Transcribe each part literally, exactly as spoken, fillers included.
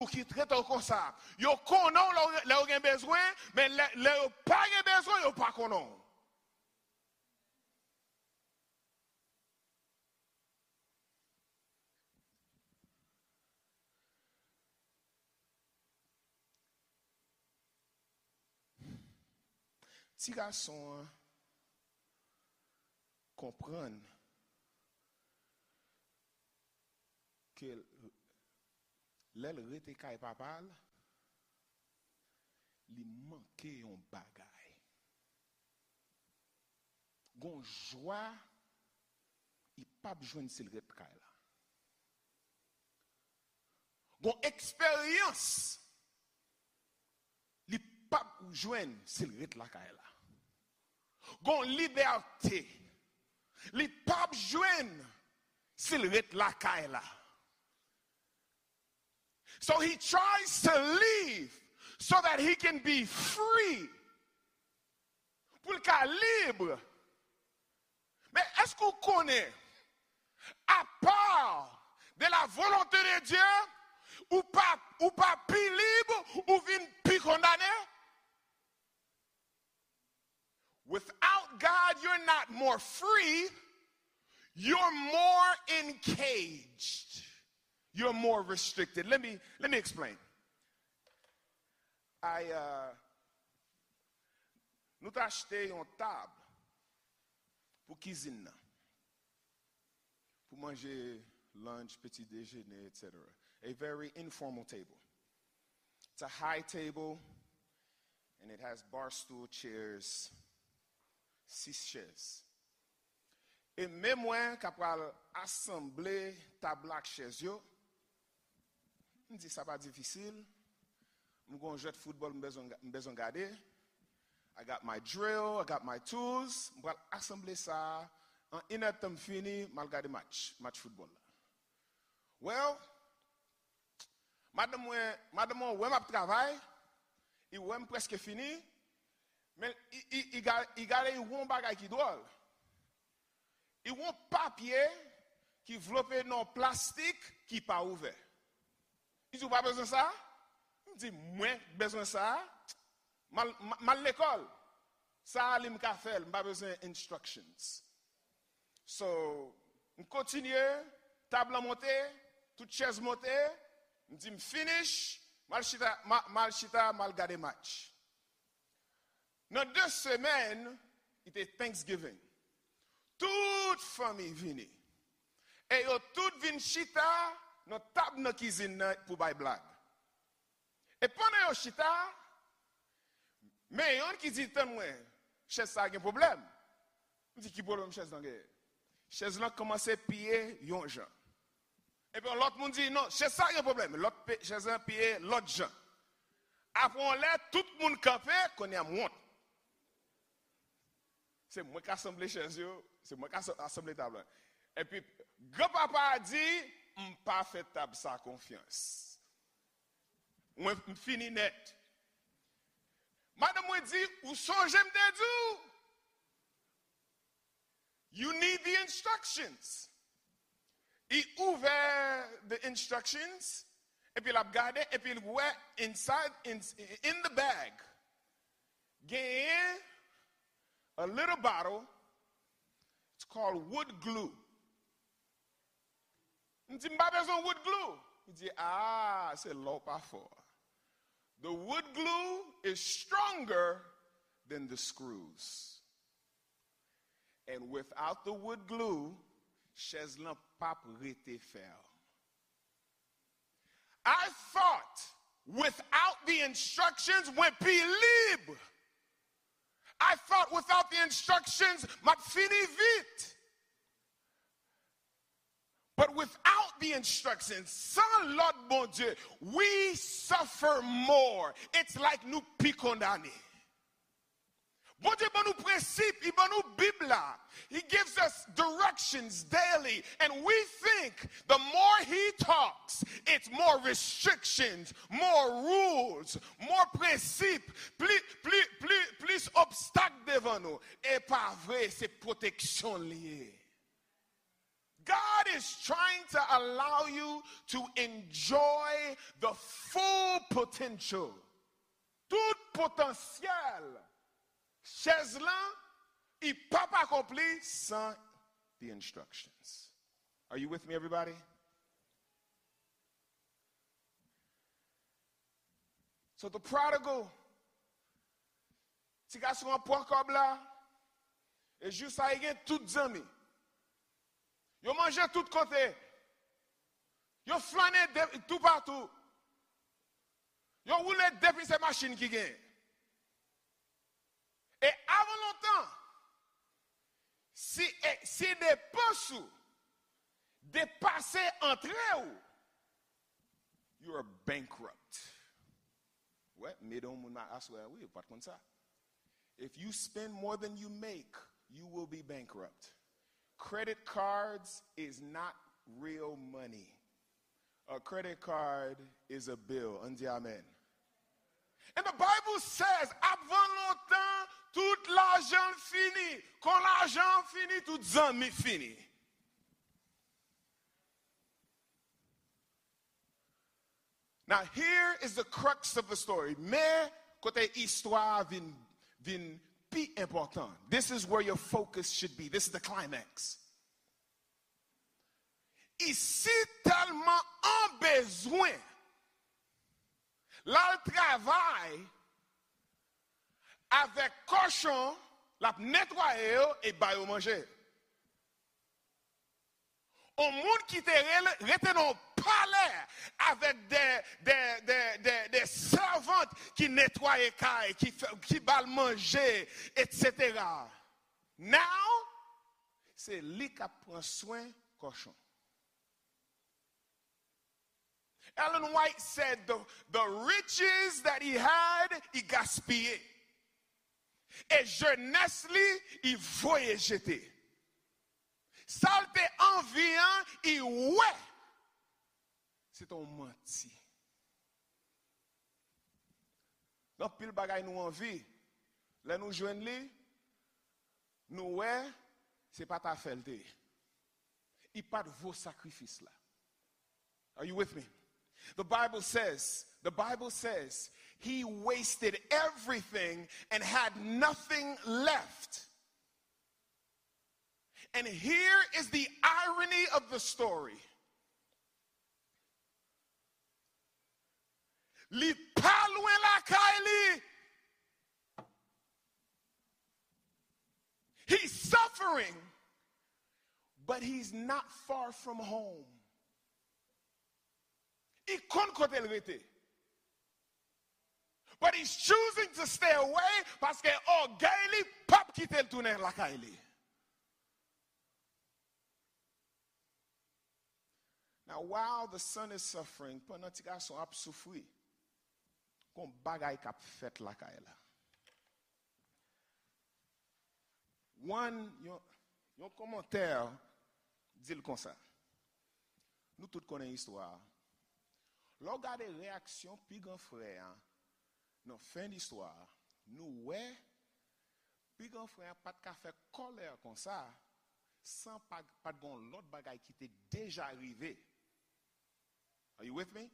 ki trete w konsa. Yo konnen w lè w, lè w gen bezwen, men lè, lè yo pa gen bezwen, yo pa konnen w. Ti gason an konprann ke l, lè l rete kay papa l, li manke yon bagay. Gon jwa li p ap jwenn si l ret kay la. Gon eksperyans li p ap jwenn si l ret lakay la. Gon libète li p ap jwenn si l ret lakay la. So he tries to leave so that he can be free. Pou l ka lib. Men èske w konnen, à part de la volonté de Dieu, ou pa, ou pa pi lib, ou vin pi kondane? Without God, you're not more free, you're more encaged. You're more restricted. Let me, let me explain. I, uh, nou t achte yon tab pou kizin nan. Pou manje lunch, petit déjeuner, et cetera. A very informal table. It's a high table and it has bar stool chairs, sis chèz. E men mwen k ap pral asanble tab la ak chèz yo, m di sa pa difisil. M gon jwèt foutbòl m bezwen, m bezwen gade. I got my drill, I got my tools. M pral asanble sa a. An inèdtan m fini, m al gade match, match foutbòl la. Well, madanm mwen, madanm mwen wè m ap travay, li wè m prèske fini, men li, li, li ga-, li gade, li wè yon bagay ki dwòl. Li wè yon papye ki vlope nan yon plastik ki pa ouvè. Li di, "Ou pa bezwen sa?" M di, "Mwen bezwen sa." M al, m, m al lekòl. Sa a li m ka fè l, m pa bezwen instructions. So, m kontinye, tab lan monte, tout chèz monte, m di m finish, m al chita, m a-, m al chita, m al gade match. Nan de semèn, li te Thanksgiving. Tout fanmi vini. E yo tout vin chita nan tab nan kizin nan pou bay blag. E pandan yo chita, men yonn ki di, "Tann mwen, chèz sa a gen pwoblèm." M di, "Ki pwoblèm chèz lan genyen?" Chèz lan kòmanse piye yon jan. Epi yon lòt moun di, "Non, chèz sa a gen pwoblèm." Lòt pe-, chèz lan piye lòt jan. Apre yon lè, tout moun kanpe, kounye a m wont. Se mwen k asanble chèz yo, se mwen k asa-, asanble tab la. Epi, granpapa a di, "M pa fè tab sa konfyans." Mwen, m fini nèt. Madanm mwen di, "Ou sonje m te di w, you need the instructions." Li ouvè the instructions, epi l ap gade, epi l wè inside, in, in the bag, genyen a little bottle, it's called wood glue. M di, "M pa bezwen wood glue." Li di, "Ah, se la w pa fò." The wood glue is stronger than the screws. And without the wood glue, chèz lan p ap rete fèm. I thought without the instructions, mwen pi lib. I thought without the instructions, m ap fini vit. But without the instructions, san lòd Bondye, we suffer more. It's like nou pi kondane. Bondye ban nou prensip, li ban nou Bib la. He gives us directions daily, and we think the more he talks, it's more restrictions, more rules, more prensip, pli, pli, pli, plis obstak devan nou. E pa vre, se pwoteksyon li ye. God is trying to allow you to enjoy the full potential. Tout potansyèl chèz lan, li p ap akonpli san the instructions. Are you with me, everybody? So the prodigal, ti gason an pran kòb la, e jou sa li gen tout zanmi. Yo manje tout kote. Yo flannen de, toupatou. Yo woule depi se machin ki gen. E avan lontan, si, e, si depans ou depase antre w, you are bankrupt. Wè, m ede yon moun aswè, wi, ou pa t konn sa. If you spend more than you make, you will be bankrupt. Credit cards is not real money. A credit card is a bill. Ann di amen. And the Bible says, avan lontan, tout lajan fini. Kon lajan fini, tout zanmi fini. Now, here is the crux of the story. Men, kote istwa a vin, vin pi enpòtan. This is where your focus should be. This is the climax. Li si tèlman an bezwen, l al travay avèk kòchon, l ap netwaye yo e ba yo manje. On moun ki te rele, rete nan yon palè avèk de, de, de, de, de sèvant ki netwaye kay, ki fè, ki ba l manje, etsetera. Now, se li k ap pran swen kòchon. Ellen White said the, the riches that he had, li gaspiye. E jenès li, li voye jete. Sa l te anvi an, li wè se te yon manti. Gen anpil bagay nou anvi, lè nou jwenn li, nou wè se pa t afè l te ye. Li pa t vo sakrifis la. Are you with me? The Bible says, the Bible says, he wasted everything and had nothing left. And here is the irony of the story. Li pa lwen lakay li. He's suffering, but he's not far from home. Li konn kote l rete. But he's choosing to stay away paske ògèy li p ap kite l tounen lakay li. Now, while the son is suffering, pandan ti gason ap soufri, gon bagay k ap fèt lakay la. One, yon, yon kòmantè di l konsa. Nou tout konnen istwa a. Lè w gade reyaksyon pi gran frè a nan fen istwa a, nou wè pi gran frè a pa t ka fè kòlè konsa san pa, pa t gon lòt bagay ki te deja rive. Are you with me?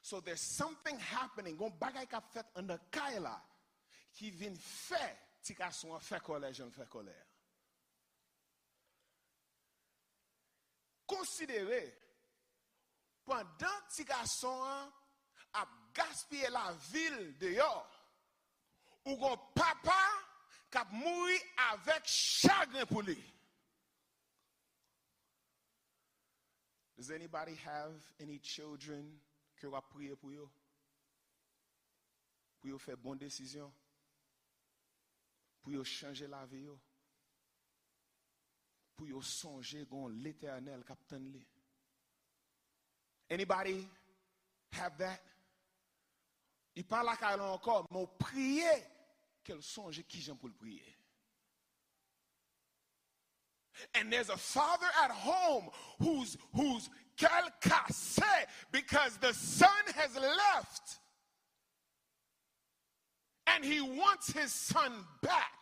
So there's something happening. Gon bagay k ap fèt anndan kay la ki vin fè ti gason an fè kòlè jan l fè kòlè a. Konsidere, pandan ti gason an ap gaspiye lavi l deyò, ou gon papa k ap mouri avèk chagren pou li. Does anybody have any children ke w ap priye pou yo? Pou yo fè bon desizyon? Pou yo chanje lavi yo? Pou yo sonje gon Letènèl k ap tann li? Anybody have that? Li pa lakay la ankò, men w priye ke l sonje kijan pou l priye. And there's a father at home who's, who's cœur cassé because the son has left. And he wants his son back.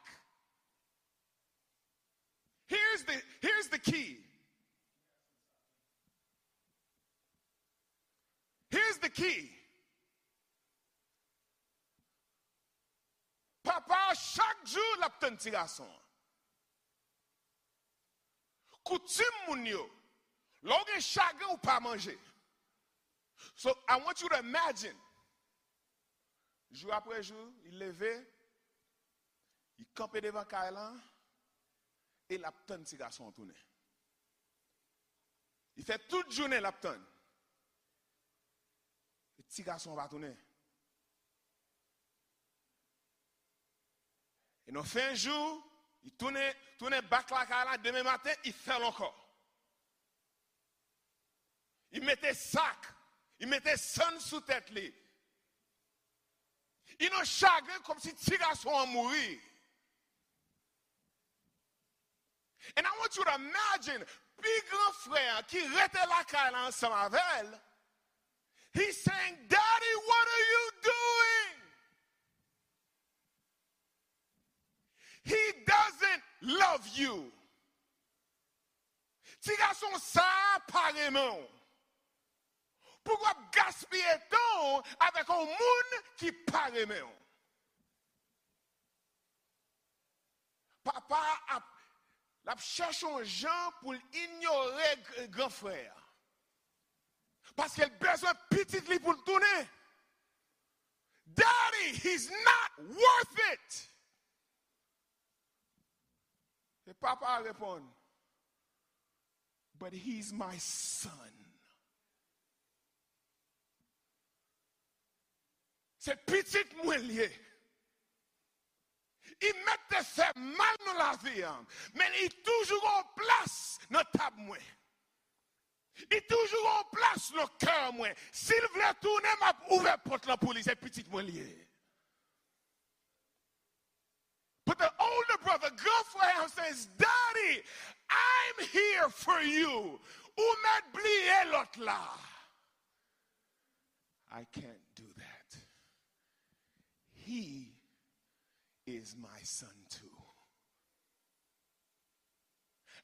Here's the, here's the key. ki papa a, chak jou l ap tann ti gason an. Koutim moun yo, lè w gen chagren, ou pa manje. So, I want you to imagine. Jou apre jou, li leve, li kanpe devan kay lan, e l ap tann ti gason an tounen. Li fè tout jounen l ap tann. E ti gason an pa tounen. E nan fen jou, li tounen, tounen back lakay la, demen maten, li fè l ankò. Li mete sak, li mete sann sou tèt li. Li nan chagren kòmsi ti gason an mouri. And I want you to imagine, pi gran frè an ki rete lakay la ansanm avè l, he's saying, "Daddy, what are you doing?" He doesn't love you. Ti gason sa a pa renmen w. Pou w ap gaspiye tan w avèk yon moun ki pa renmen w. Papa a ap, l ap chèche yon jan pou l inyore g-, gran frè a. Paske l bezwen pitit li pou l tounen. Daddy, he's not worth it. E papa a reponn, "But he's my son." Se pitit mwen l ye. Li mèt te fè mal nan lavi an, men li toujou gon plas nan tab mwen. Li toujou gon plas nan kè mwen. Si l vle tounen, m ap ouvè pòt lan pou li. Se pitit mwen l ye. But the older brother, gran frè an, says, "Daddy, I'm here for you." Ou mèt bliye lòt la. I can't do that. He is my son too.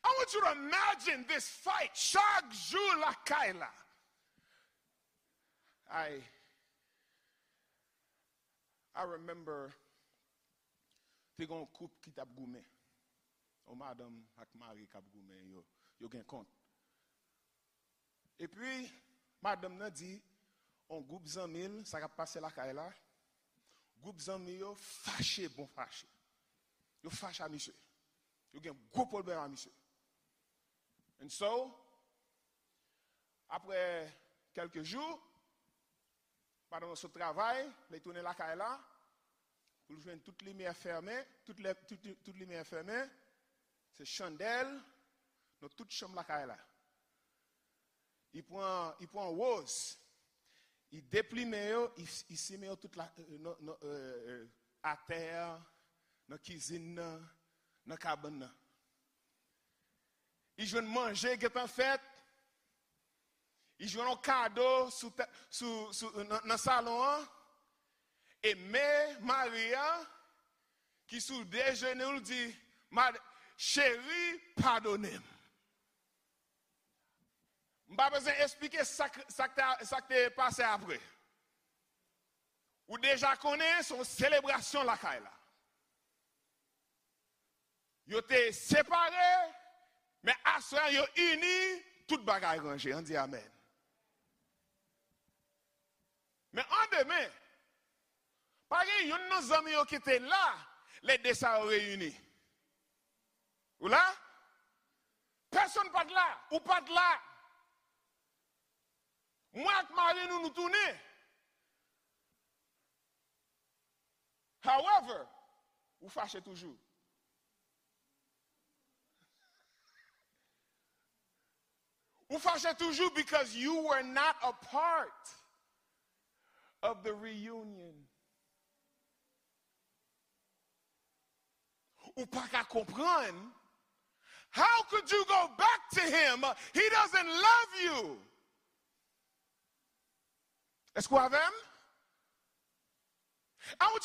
I want you to imagine this fight chak jou lakay la. I, I remember, te gen yon koup ki t ap goumen. Yon madanm ak mari k ap goumen, yo, yo gen kont. Epi, madanm nan di, yon gwoup zanmi l, sa k ap pase lakay la, gwoup zanmi yo fache, bon fache. Yo fache a misye. Yo gen gwo pwoblèm a misye. And so, apre kèlke jou, madanm nan sot travay, lè l tounen lakay la, pou l jwenn tout limyè fèmen, tout lè, tout, tout limyè fèmen, se chandèl nan tout chanm lakay la. Li pran, li pran woz, li deplimen yo, li, li simen yo tout la, euh, nan, nan, euh, euh, atè a, nan kizin nan, nan kabann nan. Li jwenn manje gentan fèt, li jwenn yon kado sou, ta- sou, sou, nan, nan salon an, e men mari a, ki sou de jenou l, di, "Mad- cheri, padone m." M pa bezwen esplike sa k- sa k te, sa k te pase apre. Ou deja konnen se yon selebrasyon lakay la. Yo te separe, men aswè a yo ini, tout bagay ranje. Ann di amèn. Men an demen, pa gen youn nan zanmi yo ki te la lè de sa yo reyini. Ou la? Pèsonn pa t la. Ou pa t la. Mwen ak mari nou, nou tounen. However, ou fache toujou. Ou fache toujou because you were not a part of the reunion. Ou pa ka konprann. How could you go back to him? He doesn't love you. Èske w avè m? I want